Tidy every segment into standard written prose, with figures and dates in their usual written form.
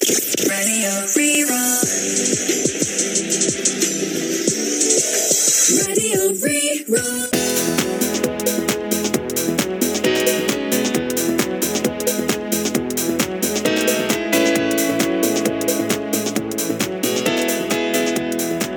Radio Rí-Rá. Radio Rí-Rá.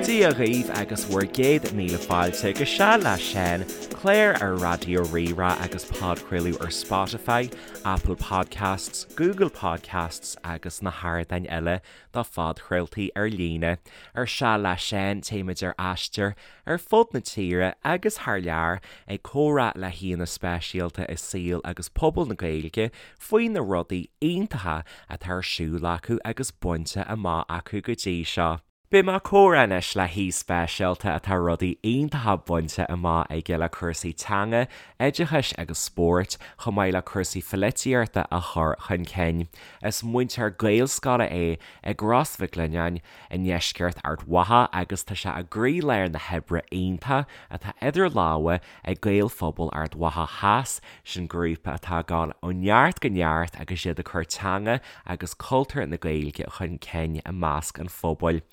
Dia dhaoibh agus bhur gcéad míle fáilte go Seal le Seán, clár ar Raidió Rí-Rá agus podchraoladh ar Spotify, Apple Podcasts, Google Podcasts agus na hardáin eile do phodchraoltaí ar líne. Ar Seal le Seán, téimid ar aistear ar fud na tíre agus thar lear ag comhrá le haíonna speisialta i saol agus pobal na Gaeilge faoi na rudaí iontacha atá ar siúl acu agus bainte amach acu go dtí seo. Beidh mé ag comhrá anois le haoi speisialta atá rudaí iontacha bainte amach aige le cúrsaí teanga, oideachais agus spóirt, chomh maith le cúrsaí pholaitíochta a chur chun cinn. Is múinteoir Gaelscoile é i gCros Mhic Lionnáin i ndeisceart Ard Mhacha agus tá sé i gcroílár na hoibre iontaí atá idir lámha ag Gaelphobal Ard Mhacha Theas, sin grúpa atá ag dul ó neart go neart agus iad ag cur teanga agus cultúr na Gaeilge chun cinn i measc an phobail.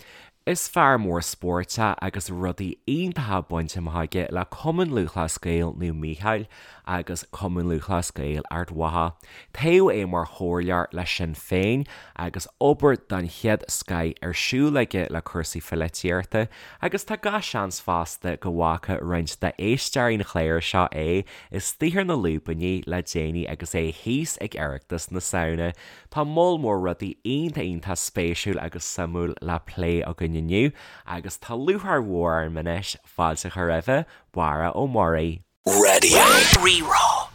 Is fear mór spóirt é agus rudaí iontacha bainte amach aige le Cumann Lúthchleas Gael Naomh Mícheál agus Cumann Lúthchleas Gael Ard Mhacha. Toghadh é mar chomhairleoir le Sinn Féin agus obair den chéad scoith ar siúl aige le cúrsaí pholaitíochta agus tá gach seans fosta go bhfaca roinnt d'éisteoirí an chláir seo é istigh ar na lúibíní le déanaí agus é thíos ag Oireachtas na Samhna. Tá moll mór rudaí iontach iontach spéisiúil agus suimiúil le plé againn inniu agus tá lúcháir mhór orm anois fáilte a chur roimhe, Barra Ó Muirí. Radio Rí-Rá.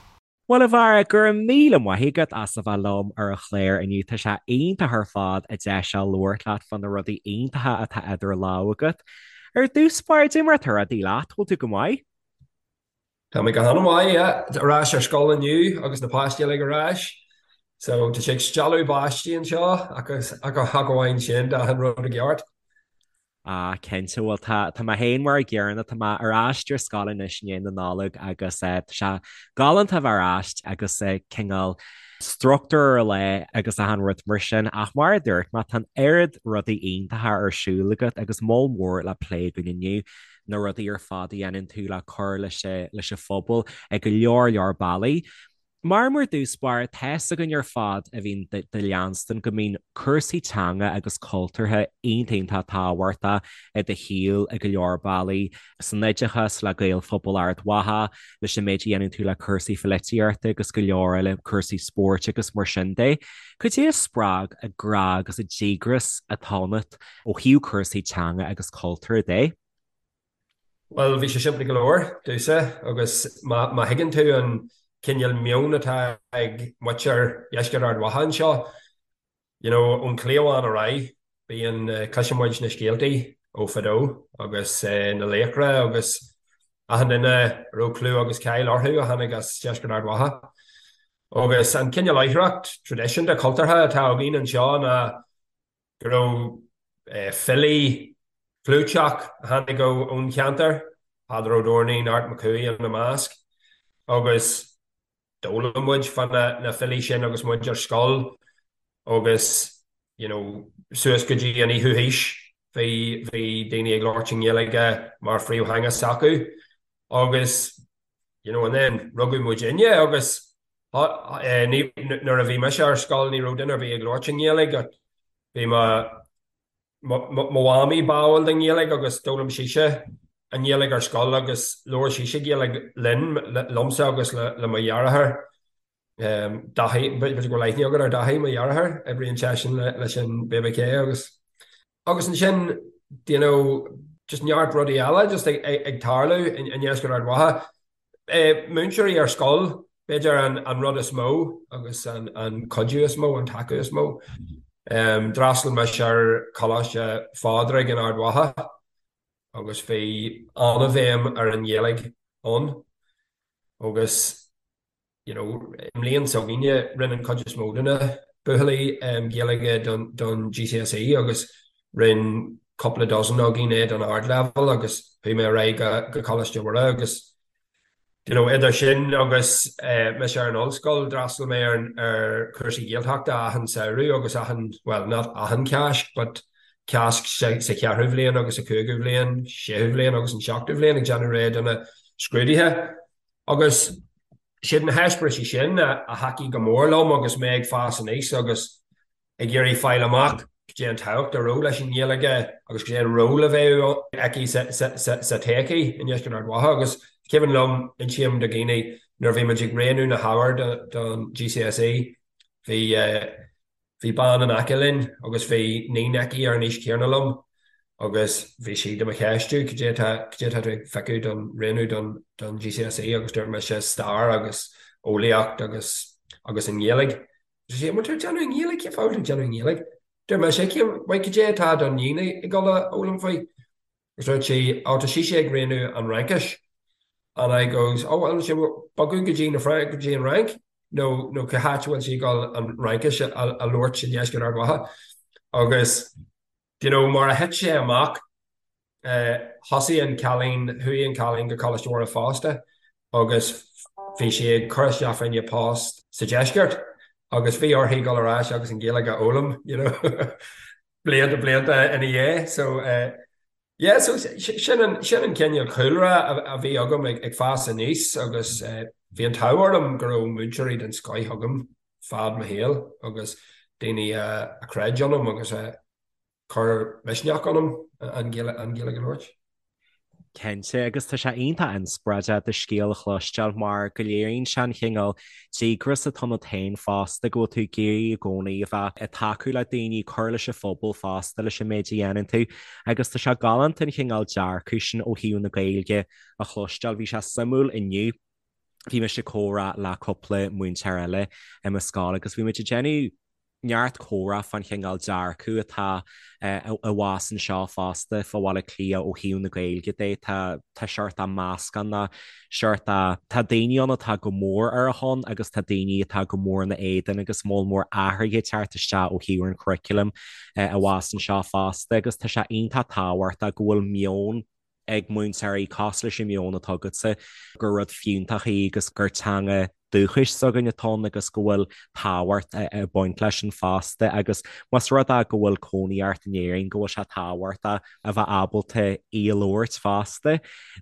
Bhuel a Bharra, go raibh míle maith agat as a bheith liom ar an chlár inniu. Tá sé iontach ar fad an deis seo labhairt leat fá na rudaí iontacha atá idir lámha agat. Ar dtús báire, cad é mar atá rudaí leat, bhfuil tú go maith? Tá mé go han-mhaith, yeah. Ar ais ar scoil inniu agus na páistí uilig ar ais. So tá sé ag stealladh báistí anseo ach ach amháin sin, tá achan rud i gceart. Ah, cinnte, bhuel tá tá mé féin mar an gcéanna, tá mé ar ais ar scoil anois i ndiaidh na Nollag agus eh, tá sé galánta a bheith ar ais agus eh, cineál struchtúr ar leith agus achan rud mar sin ach mar a dúirt mé tá an oiread rudaí iontacha ar siúl agat agus moll mór le plé againn inniu. na rudaí ar fad a dhéanann tú le cur leis leis an phobal ag go leor leor bealaí. Mar mar dtús báire, tá's againn ar fad a bhíonn do leanstan go mbíonn cúrsaí teanga agus cultúrtha iontach iontach tábhachtach i do shaol ag go leor bealaí, san oideachas, le Gaelphobal Ard Mhacha, leis an méid a dhéanann tú le cúrsaí pholaitíochta agus go leor eile, cúrsaí spóirt agus mar sin de. Cad é a spreag an grá agus an díograis atá ionat ó thaobh cúrsaí teanga agus cultúir de? Bhuel, bhí sé simplí go leor domhsa agus má má thuigeann tú an cineál meon atá ag muintir Dheisceart Ard Mhacha anseo, you know, ón chliabhán ar aghaidh, bíonn, cloiseann muid na scéaltaí ó fadó agus na laochra agus achan duine a raibh clú agus cáil orthu a tháinig as Deisceart Ard Mhacha. Agus an cineál oidhreacht traidisiúnta cultúrtha atá againn anseo ná go raibh filí clúiteach a tháinig ón cheantar, Peadar Ó Doirnín, Art Mac Cumhaigh ina measc, agus d'fhoghlaim muid fá na filí sin agus muid ar scoil agus you know suas go dtí an fhichiú haois bhí bhí daoine ag labhairt i nGaeilge mar phríomhtheanga s'acu agus you know and then rugadh muidinne agus Nuair a bhí mise ar scoil ní raibh duine ar bith ag labhairt i nGaeilge. Bhí mo mhamaí báúil don Ghaeilge agus d'fhoghlaim sise an Ghaeilge ar scoil agus labhair sise Gaeilge linn, liomsa agus le mo dheartháir Daithí, b'fhéidir go bhfuil aithne agat ar Daithí, mo dheartháir, oibríonn seisean leis an BBK agus. Agus ansin, you know, just neart rudaí eile just ag tarlú i ndeisceart Ard Mhacha. Múinteoirí ar scoil, b'fhéidir an rud is mó agus an cuidiú is mó, an tacú is mó. D'fhreastail mise ar Choláiste Phádraig in Ard Mhacha agus bhí an-bhéim ar an Ghaeilge ann agus you know, i mbliain s'againne, rinne an chuid is mó de na buachaillí Gaeilge don GCSE agus rinne cúpla dozen againn é don ardleibhéal agus chuaigh mé ar aghaidh go Coláiste Mhuire agus. You know, idir sin agus mise ar an ollscoil, d'fhreastail mé ar ar chúrsaí Gaeltachta achan samhradh agus achan, well, not achan Cáisc, but Cásc sa cheathrú bhliain agus sa chúigiú bhliain, séú bhliain agus an seachtú bhliain ag déanamh réidh do na scrúduithe. Agus siad na heispéiris sin a thacaigh go mór liom agus mé ag fás aníos agus ag iarraidh fáil amach cad é an tábhacht a raibh leis an nGaeilge agus cad é an ról a bheadh aici sa todhchaí i ndeisceart Ard Mhacha. Agus cuimhin liom, insím do dhaoine, nuair a bhí muid ag roghnú na hábhair don GCSE, bhí bhí bean in aice linn agus bhí níon aici ar an aois chéanna liom agus bhí sí do mo cheistiú, cad é atá cad é atá tú ag piocadh don roghnú don don GCSE agus dúirt mise stair agus eolaíocht agus agus an Ghaeilge. Dúirt sí, an bhfuil tú ag déanamh i nGaeilge? Cén fáth a bhfuil tú ag déanamh i nGaeilge? Dúirt mise, cén, bhuel, cad é atá do níon ag dul a fhoghlaim faoi? Agus dúirt sí, oh, tá sise ag roghnú an Fhraincis. And I goes, oh, well, sí bogadh go dtí na Fra-, go dtí an Fhrainc? Nó, nó cá háit a bhfuil sí ag dul an Fhraincis a, a labhairt i ndeisceart Ard Mhacha? Agus, do you know, mar a thit sé amach, Thosaigh an cailín, chuaigh an cailín go Coláiste Mhuire fosta agus bhí sí ag cur isteach fá choinne post sa deisceart agus bhí uirthi dul ar ais agus an Ghaeilge a fhoghlaim, you know, blianta blianta ina dhiaidh. So yeah, so sin an sin an cineál cúlra a bhí agam ag ag fás aníos agus bhí an t-ádh orm go raibh múinteoirí den scoith agam fad mo shaoil agus daoine a chreid ionam agus a chuir misneach ionam an Ghaeilge a labhairt. Cinnte, agus tá sé iontach inspioráideach do scéal a chloisteáil mar go léiríonn sé an chineál díograis atá ionat féin fosta, go bhfuil tú ag iarraidh i gcónaí a bheith ag tacú le daoine, cur leis an phobal fosta leis an méid a dhéanann tú agus tá sé galánta an chineál dearcadh sin ó thaobh na Gaeilge a chloisteáil. Bhí sé suimiúil inniu, bhí mise ag comhrá le cúpla múinteoir eile i mo scoil agus bhí muid ag déanamh neart comhrá fán chineál dearcadh atá i bhfás anseo fosta fá Bhaile Átha Cliath ó thaobh na Gaeilge de. Tá tá seort de meascán ná seort de tá daoine ann atá go mór ar a shon agus tá daoine atá go mór ina éadan agus moll mór athruithe ag teacht isteach ó thaobh an churaclaim i bhfás anseo fosta agus tá sé iontach tábhachtach go bhfuil meon ag múinteoirí cosúil leis an meon atá agatsa, gur rud fiúntach í agus gur teanga dúchais s'againn atá ann agus go bhfuil tábhacht ag baint leis sin fosta agus más rud é go bhfuil cónaí ort in Éirinn go bhfuil sé tábhachtach a bheith ábalta í a labhairt fosta.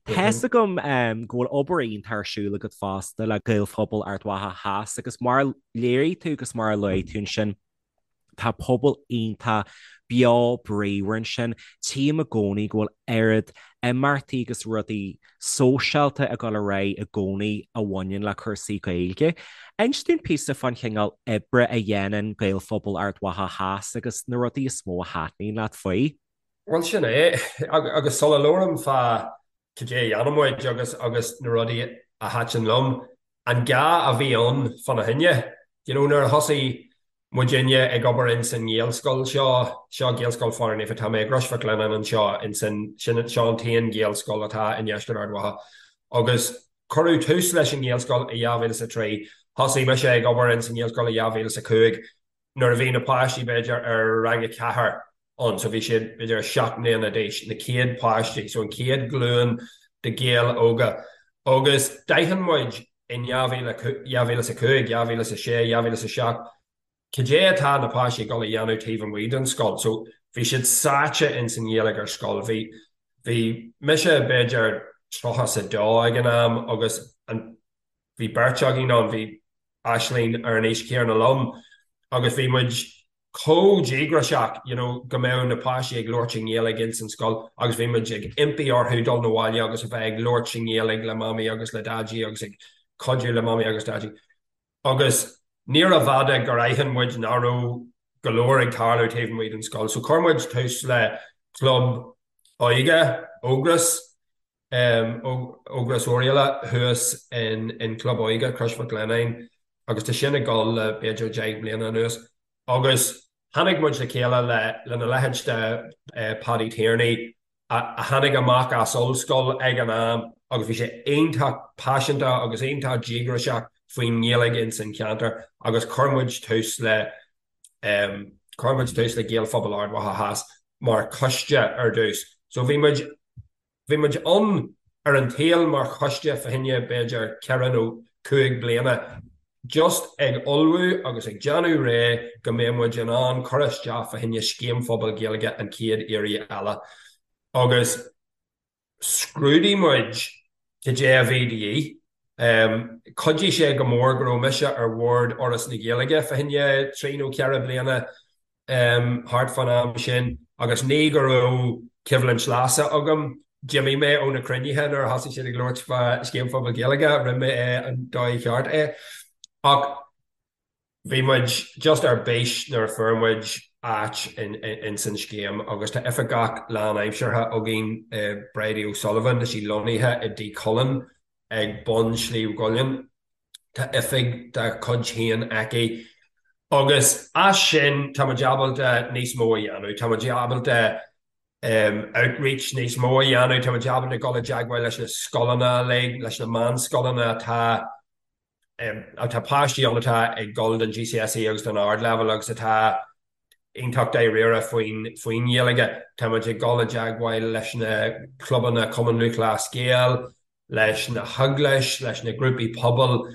Tá's agam go bhfuil obair iontach ar siúl agat fosta le Gaelphobal Ard Mhacha Theas agus mar a léirigh tú agus mar a luaigh tú ansin, Tá pobal iontach beo bríomhar ansin. Tchím i gcónaí go bhfuil oiread imeachtaí agus rudaí sóisialta ag dul ar aghaidh i gcónaí a bhaineann le cúrsaí Gaeilge. Inis dúinn píosa fán chineál oibre a dhéanann Gaelphobal Ard Mhacha Theas agus na rudaí is mó a thaitníonn leat faoi. Bhuel, sin é. Agus sula labhraím fá cad é a dhéanann muid agus agus na rudaí a thaitin liom, an gá a bhí ann fána choinne. You know, nuair a thosaigh muidinne ag obair ins an nGaelscoil seo, seo Gaelscoil Phádraig Naofa, tá mé i gCrois Mhic Lionnáin anseo ins an, sin, seo an t-aon Ghaelscoil atá i ndeisceart Ard Mhacha. Agus cuireadh tús leis an nGaelscoil i 2003. Thosaigh mise ag obair ins an nGaelscoil i 2005. Nuair a bhí na páistí b'fhéidir ar rang a ceathair ann, so bhí siad b'fhéidir 7 mbliana d'aois, na chéad páistí, so an chéad ghlúin de Ghaeil óga. Agus d'aithin muid in 2005, 2006, 2007, cad é atá na páistí ag dul a dhéanamh taobh amuigh den scoil. So bhí siad sáite ins an Ghaeilge ar scoil. Bhí, bhí mise b'fhéidir 32 ag an am agus an, bhí beirt againn ann, bhí Aisling ar an aois chéanna liom agus bhí muid chomh díograiseach you know go mbeadh na páistí ag labhairt i nGaeilge ins an scoil agus bhí muid ag impí orthu dul 'na bhaile agus a bheith ag labhairt i nGaeilge le Mamaí agus le Daidí agus ag cuidiú le Mamaí agus Daidí. Agus níorbh fhada gur aithin muid nach raibh go leor ag tarlú taobh amuigh den scoil. So chuir muid tús le club óige, Ógras, Ógras Oirialla thuas in Club Óige Chrois Mhic Lionnáin agus tá sin ag dul le b'fhéidir 10 mbliana anuas agus tháinig muid le chéile lena leithéid de Paddy Tierney a tháinig amach as ollscoil ag an am agus bhí sé iontach paiseanta agus iontach díograiseach faoin nGaeilge ins an cheantar agus chuir muid tús le chuir muid tús le Gaelphobal Ard Mhacha Theas mar choiste ar dtús. So bhí muid Bhí muid ann. ar an tsaol mar choiste fá choinne b'fhéidir 4 nó 5 bliana just ag ullmhú agus ag déanamh réidh go mbeidh muid in ann cur isteach fá choinne Scéim Phobail Gaeilge an chéad iarraidh eile agus scrúdaigh muid cad é a bhí de dhíth. Chuidigh sé go mór go raibh mise ar bhord Fhoras na Gaeilge fá choinne 3 nó 4 bliana thart fán am sin agus ní go raibh coimhlint leasa agam, d'imigh mé ó na cruinnithe nuair a thosaigh siad ag labhairt fá Scéim Phobail Gaeilge, rinne mé é an dóigh cheart é. Ach bhí muid just ar bís nuair a fuair muid áit ins an scéim agus tá oifigeach lánaimseartha againn, Bridie O'Sullivan, tá sí lonnaithe i dTigh Chulainn ag bun Shliabh gCuillinn. Tá oifig dá cuid féin aici agus as sin tá muid ábalta níos mó a dhéanamh. Tá muid ábalta outreach níos mó a dhéanamh, tá muid ábalta dul i dteagmháil leis na scoileanna uilig, leis na meánscoileanna atá atá páistí ann atá ag dul don GCSE agus don ardleibhéal agus atá iontach dáiríre faoin faoin nGaeilge. Tá muid ag dul i dteagmháil leis na clubanna Cumann Lúthchleas Gael, leis na heaglais, leis na grúpaí pobail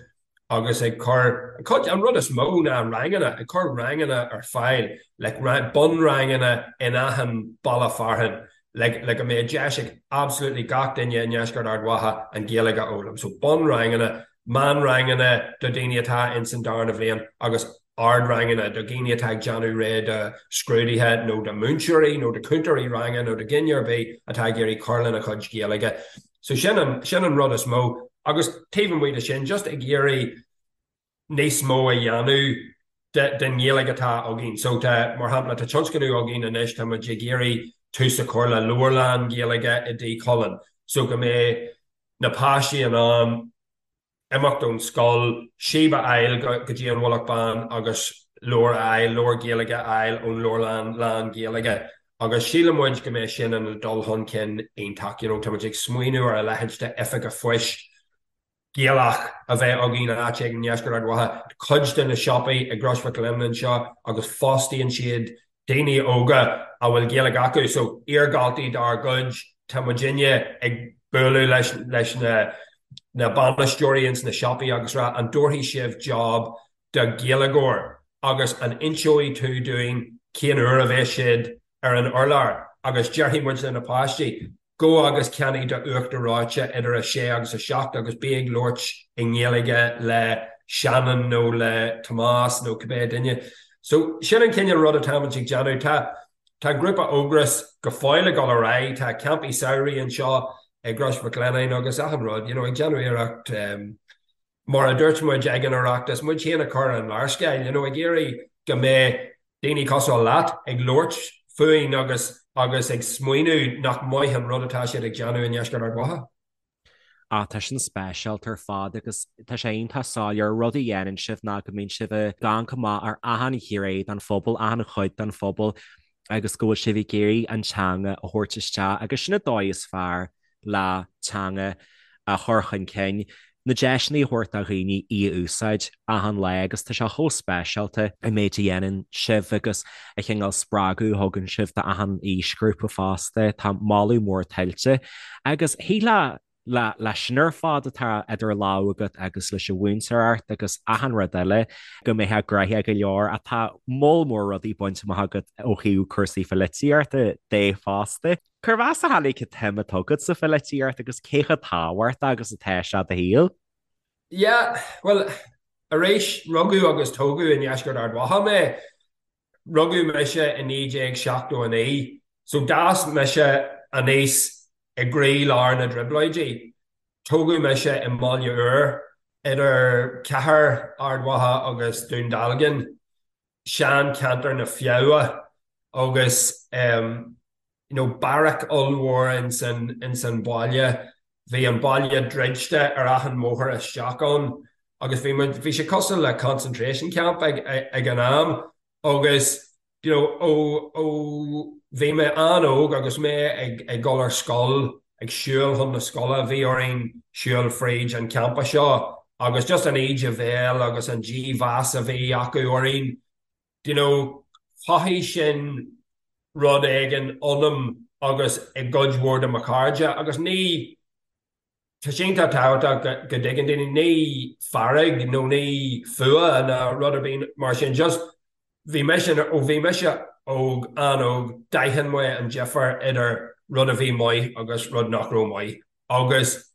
agus ag cur, cuid, an rud is mó ná ranganna, ag cur ranganna ar fáil, like bunranganna in achan baile fearainn, like le go mbeidh deis ag absolutely gach duine i ndeisceart Ard Mhacha an Ghaeilge a fhoghlaim. So bunranganna, meánranganna do daoine atá ins an darna bhliain agus ardranganna do dhaoine atá ag déanamh réidh do scrúduithe nó do mhúinteoirí nó do chúntóirí ranga nó do dhuine ar bith atá ag iarraidh cur lena chuid Gaeilge. So sin an, sin an rud is mó. Agus taobh amuigh de sin, just ag iarraidh níos mó a dhéanamh den Ghaeilge atá againn. So tá, mar shampla, tá tionscnamh againn anois, tá muid ag iarraidh tús a chur le leabharlann Gaeilge i dTigh Chulainn so go mbeidh na páistí in ann imeacht ón scoil, síob a fháil go dtí an Mhullach Bán agus leabhar a fháil, leabhar Gaeilge a fháil ón leabharlann lán-Ghaeilge agus síleann muid go mbeidh sin ina dul chun cinn iontach. You know, tá muid ag smaoineamh ar a leithéid de oifig an phoist Gaelach a bheith againn áit éigin i ndeisceart Ard Mhacha. Cuid de na siopaí i gCrois Mhic Lionnáin anseo agus fostaíonn siad daoine óga a bhfuil Gaeilge acu, so iardhaltaí dár gcuid, tá muidinne ag bualadh leis leis na na bainisteoirí ins na siopaí agus rá an dtabharfaidh sibh job do Ghaeilgeoir agus an inseoidh tú dúinn cén uair a bheas siad ar an urlár agus déarfaidh muid le na páistí Gabh agus ceannaigh do uachtar reoite idir 6 agus 7 agus bí ag labhairt i nGaeilge le Shannon nó le Tomás nó cibé duine. So, sin an cineál rud atáimid ag déanamh. Tá tá grúpa Ógras go fóill ag dul ar aghaidh, tá campaí samhraidh anseo i gCrois Mhic Lionnáin agus achan rud, you know, ag déanamh iarracht Mar a dúirt muid ag an Oireachtas, muid féin a chur ar an léarscáil, you know, ag iarraidh go mbeidh daoine cosúil leat ag labhairt fúinn agus agus ag smaoineamh nach maith an rud atá siad ag déanamh i ndeisceart Ard Mhacha. Ah, tá sin speisialta ar fad agus tá sé iontach soiléir rud a dhéanann sibh ná go mbíonn sibh ag amharc amach ar achan ghné den phobal, achan chuid den phobal agus go bhfuil sibh ag iarraidh an teanga a thabhairt isteach agus sin an dóigh is fearr le teanga a chur chun cinn, na deiseanna a thabhairt do dhaoine í a úsáid achan lá agus tá sé chomh speisialta an méid a dhéanann sibh agus an cineál spreagadh a thugann sibh d'achan aoisghrúpa fosta. Tá moladh mór tuillte agus shílfeá le leis sin ar fad atá idir lámha agat agus leis an mhúinteoireacht agus achan rud eile go mbeifeá gnoitheach go leor ach tá moll mór rudaí bainte amach agat ó thaobh cúrsaí pholaitíochta de fosta. Cérbh as a tháinig an tsuim atá agat sa pholaitíocht agus cé chomh tábhachtach agus atá sé do shaol? Yeah, bhuel, arís, rugadh agus tógadh i ndeisceart Ard Mhacha mé. Rugadh mise i 1979, so d'fhás mise aníos i gcroí-lár na dTrioblóidí. Tógadh mise i mBaile Úr, idir cathair Ard Mhacha agus Dún Dealgan. sean-cheantar na Feabha agus you know beairic ollmhór ins an ins an baile. Bhí an baile druidte ar achan mbóthar isteach ann agus bhí muid bhí sé cosúil le concentration camp ag ag an am agus you know ó ó bhí mé an-óg agus mé ag ag dul ar scoil ag siúl chun na scoile, bhí orainn siúl fríd an campa seo agus just an íde bhéil agus an dímheas a bhí acu orainn, do you know, chothaigh sin rud éigin ionam agus i gcuid mhór de mo chairde agus ní. Tá sé iontach tábhachtach go dtuigeann daoine, ní fearg nó ní fuath ná rud ar bith mar sin, just bhí mise, ó bhí mise óg, an-óg, d'aithin mé an difear idir rud a bhí maith agus rud nach raibh maith. Agus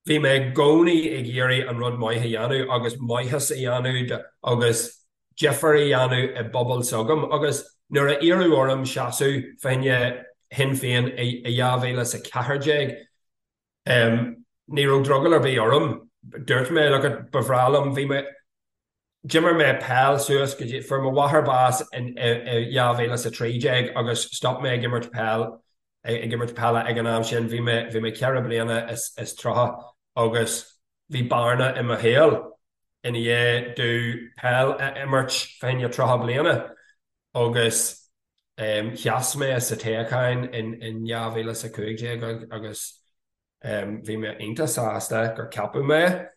bhí mé i gcónaí ag iarraidh an rud maith a dhéanamh agus maitheas a dhéanamh agus difear a dhéanamh i bpobal s'agam. Agus nuair a iarradh orm seasamh fá choinne Shinn Féin i 2014, Ní raibh drogall ar bith orm. Dúirt mé, look it, ba bhreá liom, bhí mé, d'imir mé peil suas go dtí, fuair mo mháthair bás in 2013 agus stop mé ag imirt peil, ag imirt peile ag an am sin, bhí mé, bhí mé 4 bliana is 30 agus bhí bearna i mo shaol i ndiaidh domh peil a imirt fá choinne 30 bliana agus Sheas mé sa toghchán in 2015 agus bhí mé iontach sásta gur ceapadh mé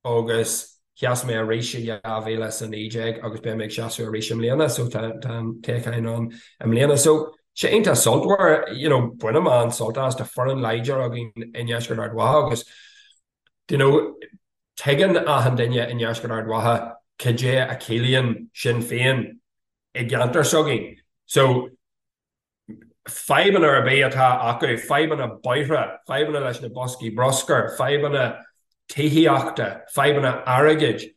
agus sheas mé arís i 2019 agus beidh mé ag seasamh arís i mbliana so tá an toghchán ann i mbliana. So sé iontach sultmhar, you know, bainim an-sult as, tá foireann láidir againn i nDeisceart Ard Mhacha agus you know, tuigeann achan duine i nDeisceart Ard Mhacha cad é a chiallaíonn Sinn Féin i gceantar s'againn. So, fadhbanna ar bith atá acu, fadhbanna bóithre, fadhbanna leis na boscaí bruscair, fadhbanna tithíochta, fadhbanna airgid,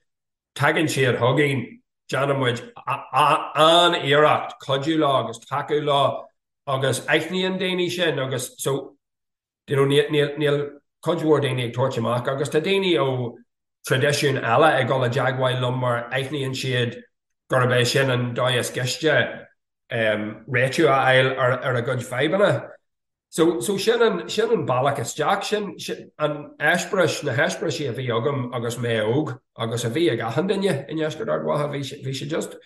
tagann siad chugainn, déanann muid an-iarracht cuidiú leo agus tacú leo agus aithníonn daoine sin agus so, you know, níl cuid mhór daoine ag tabhairt amach agus tá daoine ó traidisiúin eile ag dul i dteagmháil liom mar aithníonn siad gurb é sin an dóigh is gaiste réitiú a fháil ar a gcuid fadhbanna. So, so sin an, sin an bealach isteach, sin, sin an eispéireas, na heispéirisí a bhí agam agus mé óg agus a bhí ag achan duine i nDeisceart Ard Mhacha, bhí sé, bhí sé just,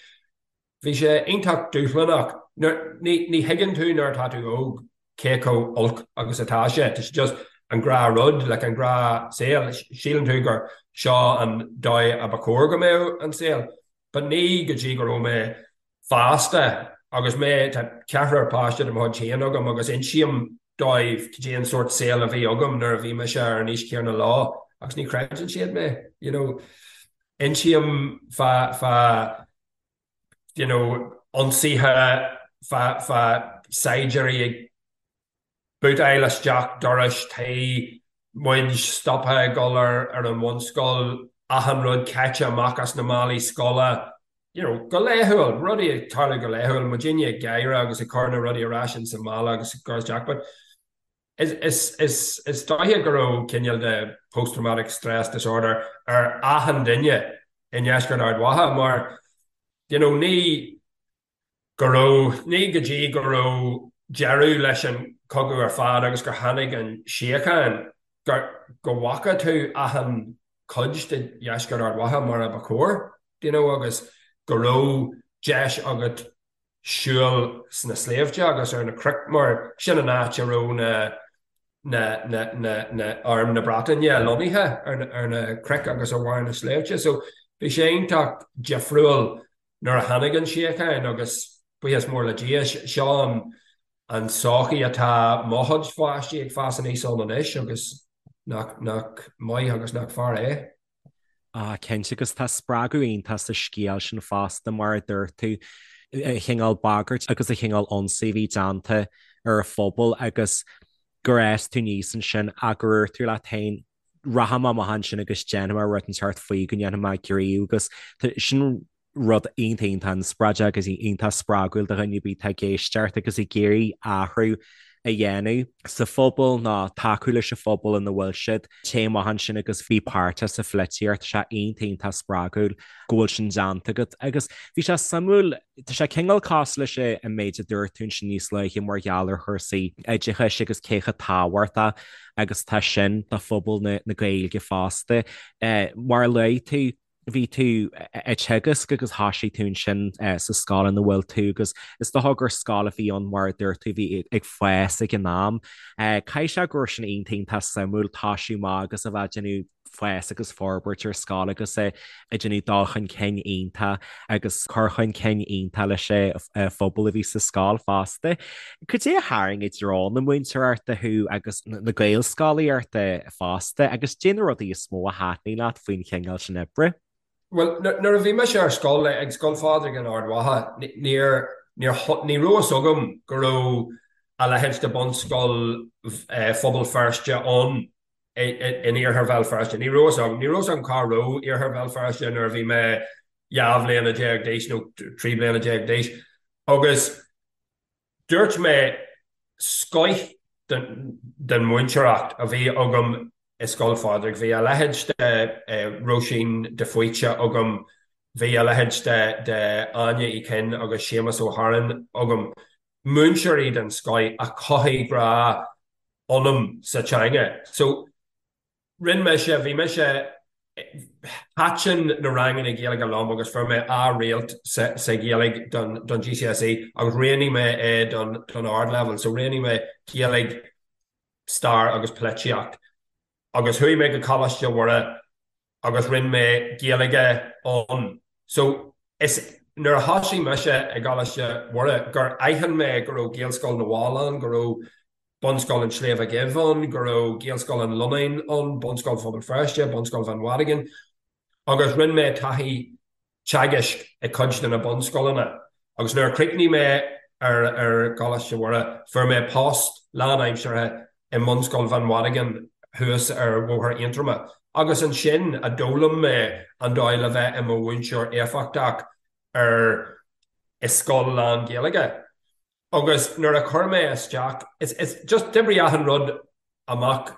Bhí sé iontach dúshlánach. Ní thuigeann tú nuair atá tú óg cé chomh olc agus atá sé. Tá sé just an gnáthrud, like an gnáthshaol. Síleann tú gur seo an dóigh a ba chóir go mbeadh an saol. But ní go dtí go raibh mé fásta agus mé, tá ceathrar páiste de mo chuid féin agam agus insím dóibh cad é an sórt saol a bhí agam nuair a bhí mise ar an aois chéanna leo agus ní chreideann siad mé, you know. Insím fá, fá, you know, ionsaithe fá, fá saighdiúirí ag bootáil isteach dorais tí, muid stoptha ag dul ar, ar an bhunscoil, achan rud caite amach as na málaí scoile, you know, go laethúil, rudaí ag tarlú go laethúil, muidinne ag gáire agus ag cur na rudaí ar ais ins an mála agus ag cur isteach, but is, is, is dóiche go raibh cineál de post-traumatic stress disorder ar achan duine i nDeisceart Ard Mhacha mar, you know, ní go raibh, ní go dtí go raibh deireadh leis an chogadh ar fad agus gur tháinig an síocháin gur, go bhfaca tú achan cuid de Dheisceart Ard Mhacha mar a ba chóir, you know, agus go raibh deis agat siúl sna sléibhte agus ar na cnoic mar sin an áit a raibh na na na na na arm na Breataine lonnaithe ar na ar na cnoic agus ar bharr na sléibhte. So bhí sé iontach difriúil nuair a tháinig an síocháin agus buíochas mór le Dia seo an an sochaí atá mo chuid pháistí ag fás aníos ann anois agus nach nach maith agus nach fearr é. Ah, cinnte, agus tá spreagadh iontach sa scéal sin fosta, mar a dúirt tú, an chineál bagairt agus an chineál ionsaí a bhí déanta ar an phobal agus gur fhás tú aníos ansin ach gur dhúirt tú leat féin, rachaidh mé amach ansin agus déanfaidh mé rud inteacht faoi, go ndéanfaidh mé gníomh agus sin rud iontach iontach inspioráideach agus iontach spreagúil do dhuine ar bith atá ag éisteacht agus ag iarraidh athrú a dhéanamh sa phobal nó tacú leis an phobal ina bhfuil siad. Téigh amach ansin agus bí páirteach sa pholaitíocht. Tá sé iontach iontach spreagúil go bhfuil sin déanta agat. Agus bhí sé suimiúil, tá sé cineál cosúil leis an méid a dúirt tú ansin níos luaithe mar gheall ar chúrsaí oideachais agus cé chomh tábhachtach agus atá sin do phobal na Gaeilge fosta. Mar a luaigh tú, bhí tú ag teagasc agus thoisigh tú ansin sa scoil ina bhfuil tú agus is dócha gur scoil a bhí ann mar a dúirt tú bhí ag fás ag an am. Caithfidh sé go raibh sin iontach iontach suimiúil toisiú amach agus a bheith ag déanamh fás agus forbairt ar scoil agus ag déanamh dul chun cinn iontach agus cur chun cinn iontach leis an phobal a bhí sa scoil fosta. Cad é a tharraing i dtreo na múinteoireachta thú agus na Gaelscolaíochta fosta agus cad é na rudaí is mó a thaitnigh leat faoin chineál sin oibre? Bhuel, nuair a bhí mise ar scoil, ag Scoil Phádraig in Ard Mhacha, níor, níor, ní raibh fhios agam go raibh a leithéid de Bunscoil Phobal Feirste ann in Iarthar Bhéal Feirste. Ní raibh fhios agam, ní raibh fhios agam cá raibh Iarthar Bhéal Feirste nuair a bhí mé 12 bhliana d'aois nó 13 bliana d'aois. Agus dúirt mé scoith den mhúinteoireacht a bhí agam i Scoil Phádraig, bhí a leithéid de Róisín de Faoite agam, bhí a leithéid de Áine Uí Chinn agus Séamus Ó hAráin agam, múinteoirí den scoith a chothaigh grá ionam sa teanga. So rinne mise, bhí mise, thaitin na ranganna Gaeilge liom agus fuair mé A réalt sa Ghaeilge don don GCSE agus roghnaigh mé é don don ardleibhéal. So roghnaigh mé Gaeilge, Stair agus Polaitíocht. Agus chuaigh mé go Coláiste Mhuire agus rinne mé Gaeilge ann. So is nuair a thosaigh mise i gColáiste Mhuire gur aithin mé go raibh Gaelscoil na bhFál ann, go raibh Bunscoil an tSléibhe Dhuibh ann, go raibh Gaelscoil an Lonnáin ann, Bunscoil Phobal Feirste, Bunscoil Bhinn Mhadagáin agus rinne mé taithí teagaisc i cuid de na bunscoileanna agus nuair a chríochnaigh mé ar ar gColáiste Mhuire fuair mé post lánaimseartha i mBunscoil Bhinn Mhadagáin thuas ar Bhóthar Aontroma agus ansin a d'fhoghlaim mé an dóigh le bheith i mo mhúinteoir éifeachtach ar i scoil lán-Ghaeilge. Agus nuair a chuir mé isteach, is, is, just d'oibrigh achan rud amach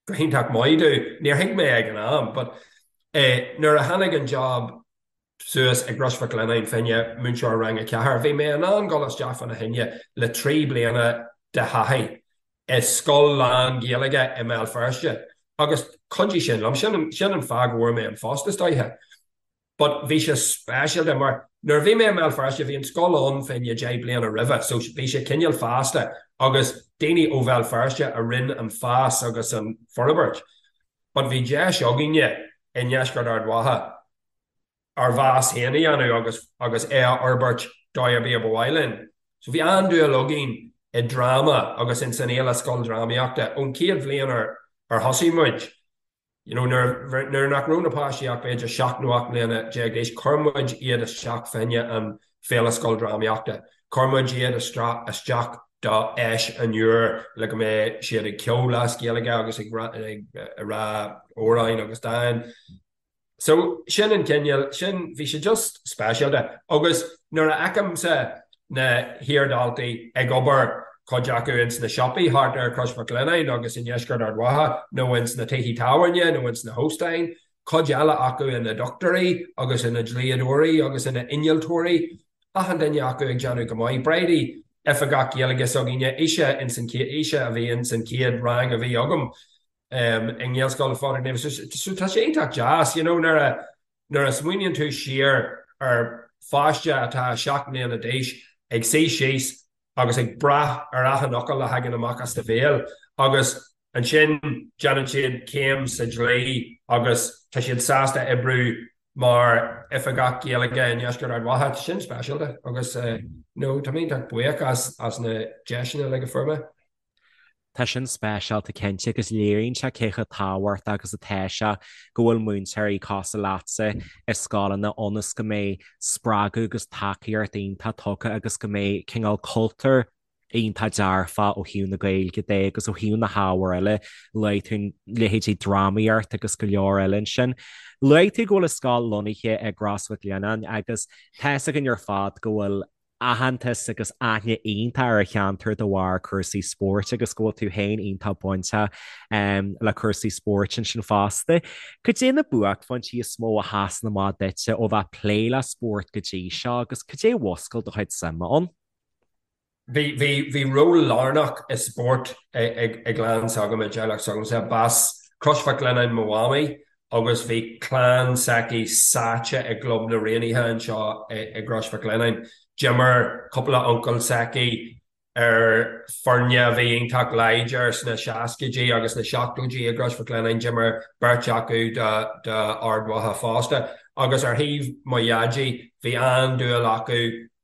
go hiontach maith domh, níor thuig mé ag an am, but eh nuair a tháinig an job suas i gCrois Mhic Lionnáin fá choinne múinteoir rang a ceathair, bhí mé in ann dul isteach fána choinne le 3 bliana de thaithí i scoil lán-Ghaeilge i mBéal Feirste agus chuidigh sin liom, sin, sin an fáth go bhfuair mé an phost is dóiche. But bhí sé speisialta mar nuair a bhí mé i mBéal Feirste bhí an scoil ann fá choinne 10 bliana roimhe so bhí sé cineál fásta agus daoine ó Bhéal Feirste a rinne an fás agus an forbairt. But bhí deis againne i ndeisceart Ard Mhacha ár bhfás féin a dhéanamh agus agus é a fhorbairt dóigh ar bith a ba mhaith linn. So bhí an-dúil againn i dráma agus ins an fhéile scoildrámaíochta ón chéad bhliain ar ar thosaigh muid. You know, nuair, nuair nach raibh na páistí ach b'fhéidir 7 nó 8 mbliana d'aois, chuir muid iad isteach fá choinne an Féile Scoildrámaíochta. Chuir muid iad isteach do Fheis an Iúir le go mbeadh siad ag ceol as Gaeilge agus ag rá amhráin agus dáin. So, sin an cineál, sin, bhí sé just speisialta. Agus nuair a fheicimse na hiardhaltaí ag obair, cuid acu ins na siopaí thart ar Chrois Mhic Lionnáin agus i ndeisceart Ard Mhacha nó ins na tithe tábhairne nó ins na hóstáin, cuid eile acu ina ndochtúirí agus ina ndlíodóirí agus ina n-innealtóirí, achan duine acu ag déanamh go maith. Bridie, oifigeach Gaeilge s'againne, ise ins an chéad, ise a bhí ins an chéad rang a bhí agam i nGaelscoil Phádraig Naofa. So tá sé iontach deas, you know, nuair a, Nuair a smaoiníonn tú siar ar pháiste atá 7 mbliana d'aois ag suí síos agus ag brath ar achan fhocal a thagann amach as do bhéal agus ansin déanann siad céim sa dlí agus tá siad sásta oibriú mar oifigeach Gaeilge i ndeisceart Ard Mhacha, tá sin speisialta agus no tá mé iontach buíoch as na deiseanna uilig a fuair mé. Tá sin speisialta cinnte agus léiríonn sé cé chomh tábhachtach agus atá sé go bhfuil múinteoirí cosúil leatsa i scoileanna ionas go mbeidh spreagadh agus tacaíocht iontach tugtha agus go mbeidh cineál cultúr iontach dearfach ó thaobh na Gaeilge de agus ó thaobh na hábhair eile. Luaigh tú leithéidí drámaíocht agus go leor eile ansin. Luaigh tú go bhfuil an scoil lonnaithe i gCros Mhic Lionnáin agus tá fhios againn ar fad go bhfuil aitheantas agus aithne iontach ar an cheantar de bharr cúrsaí spóirt agus go bhfuil tú féin iontach bainteach le cúrsaí spóirt ansin fosta. Cad é na buaicphointí is mó a sheasann amach duitse ó bheith ag plé le spórt go dtí seo agus cad é a mhúscail do chuid suime ann? Bhí, bhí, bhí ról lárnach i spórt ag, i gclann s'agam, i dteaghlach s'agamsa. B'as Crois Mhic Lionnáin mo mhamaí agus bhí clann s'aici sáite i gClub na Raonaithe anseo i gCrois Mhic Lionnáin. D'imir cúpla uncail s'aici. Ar foirne a bhí iontach láidir sna seascaidí agus na seachtóidí i gCrois Mhic Lionnáin, d'imir beirt acu d'Ard Mhacha fosta. Agus ar thaobh mo dhaidí, bhí an-dúil acu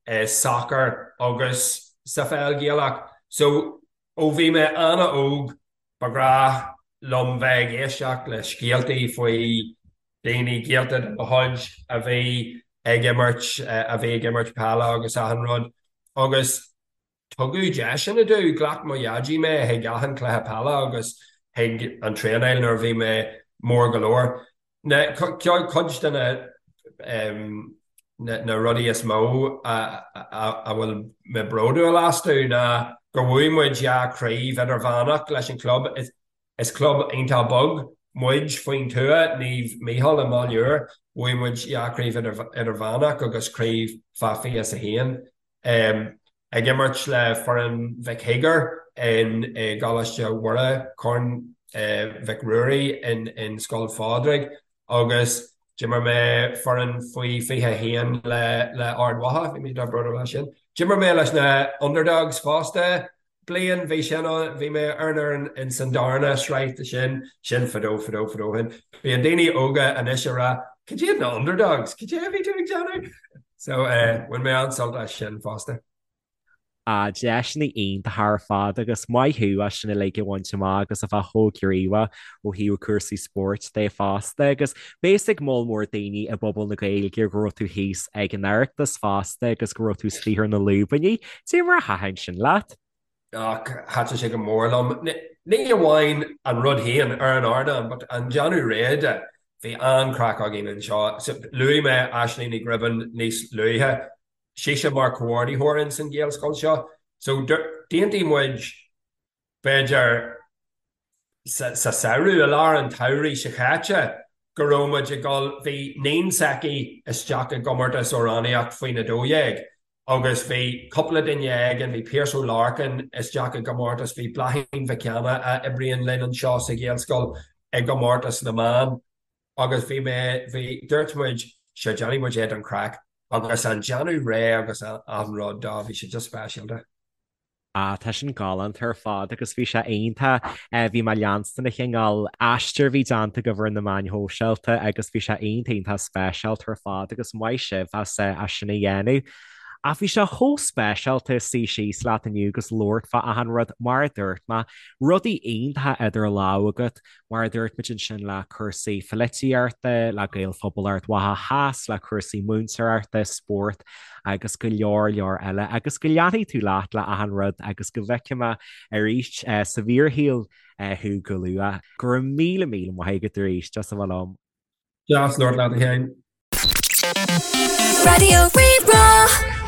i sacar agus sa pheil Ghaelach. So, ó bhí mé an-óg, ba ghnách liom bheith ag éisteacht le scéaltaí faoi daoine gaolta de mo chuid a bhí ag imirt, a bhí ag imirt peile agus achan rud. Agus tugadh deiseanna domh, ghlac mo dhaidí mé chuig achan chluiche peile agus chuig an traenáil nuair a bhí mé mór go leor. Na, cuid de na, na rudaí is mó a a bhfuil mé bródúil astu ná gur bhuaigh muid dhá chraobh idirmheánach leis an chlub. Is club iontach beag muid faoin tuath, Naomh Mícheál i mBaile Úr. Bhuaigh muid dhá chraobh idirmheánach agus craobh fá 21. Ag imirt le foireann Mhic Shíogair i gColáiste Mhuire, Corn Mhic Ruairí in Scoil Phádraig agus d'imir mé foireann faoi 21 le Ard Mhacha, bhí mé iontach bródúil as sin. D'imir mé leis na Underdogs fosta. bliain, bhí sin ann, bhí mé ar an fhoireann in san darna sraith de sin, sin fadó, fadó, fadó ó shin. Bíonn daoine óga anois ag rá, cad iad na underdogs? Cad é a bhí tú ag déanamh? So, eh, bhain mé an-sult as sin fosta. Ah, deiseanna iontacha ar fad agus maith thú as sin uilig a bhaint amach agus a bheith chomh gníomhach ó thaobh cúrsaí spóirt de fosta agus beidh a fhios ag moll mór daoine i bpobal na Gaeilge go raibh tú thíos ag an Oireachtas fosta agus go raibh tú istigh ar na lúibíní. Cad é mar a thaitin sin leat? Ach thaitin sé go mór liom. Ní amháin an rud féin ar an ardán, but an déanamh réidh de. Bhí an-chraic againn anseo. Luaigh mé Aisling Ní Ghribín níos luaithe. Sise mar comhordaitheoir ins an Ghaelscoil seo. So d'aontaigh muid b'fhéidir sa samhradh, i lár an tsamhraidh seo chaite, go raibh muid ag dul, bhí níon s'aici isteach i gcomórtas amhránaíocht faoin 12 agus bhí cúpla duine againn, bhí Pearse Ó Lorcáin isteach i gcomórtas, bhí Bláithín Mhic Anna a oibríonn linn anseo sa Ghaelscoil i gcomórtas na mban agus bhí mé, bhí, dúirt muid, sure déanfaidh muid é don chraic agus an déanamh réidh agus an rud dó, bhí sé just speisialta. Ah, tá sin galánta ar fad agus bhí sé iontach. Bhí mé ag leanstan an chineál aistir a bhí déanta agaibh ar na meáin shóisialta agus bhí sé iontach iontach speisialta ar fad agus maith sibh as as sin a dhéanamh. Ach bhí sé chomh speisialta suí síos leat inniu agus labhairt fá achan rud, mar a dúirt mé, rudaí iontacha idir lámha agat, Mar a dúirt muid ansin le cúrsaí polaitíochta, le Gaelphobal Ard Mhacha Theas, le cúrsaí múinteoireachta, spórt agus go leor leor eile. Agus go leanfaidh tú leat le achan rud agus go bhfeicfidh mé arís sa bhfíorshaol thú go luath. Go raibh míle míle maith agat arís as a bheith liom. Deas labhairt leat a Sheáin. Raidió Rí-Rá.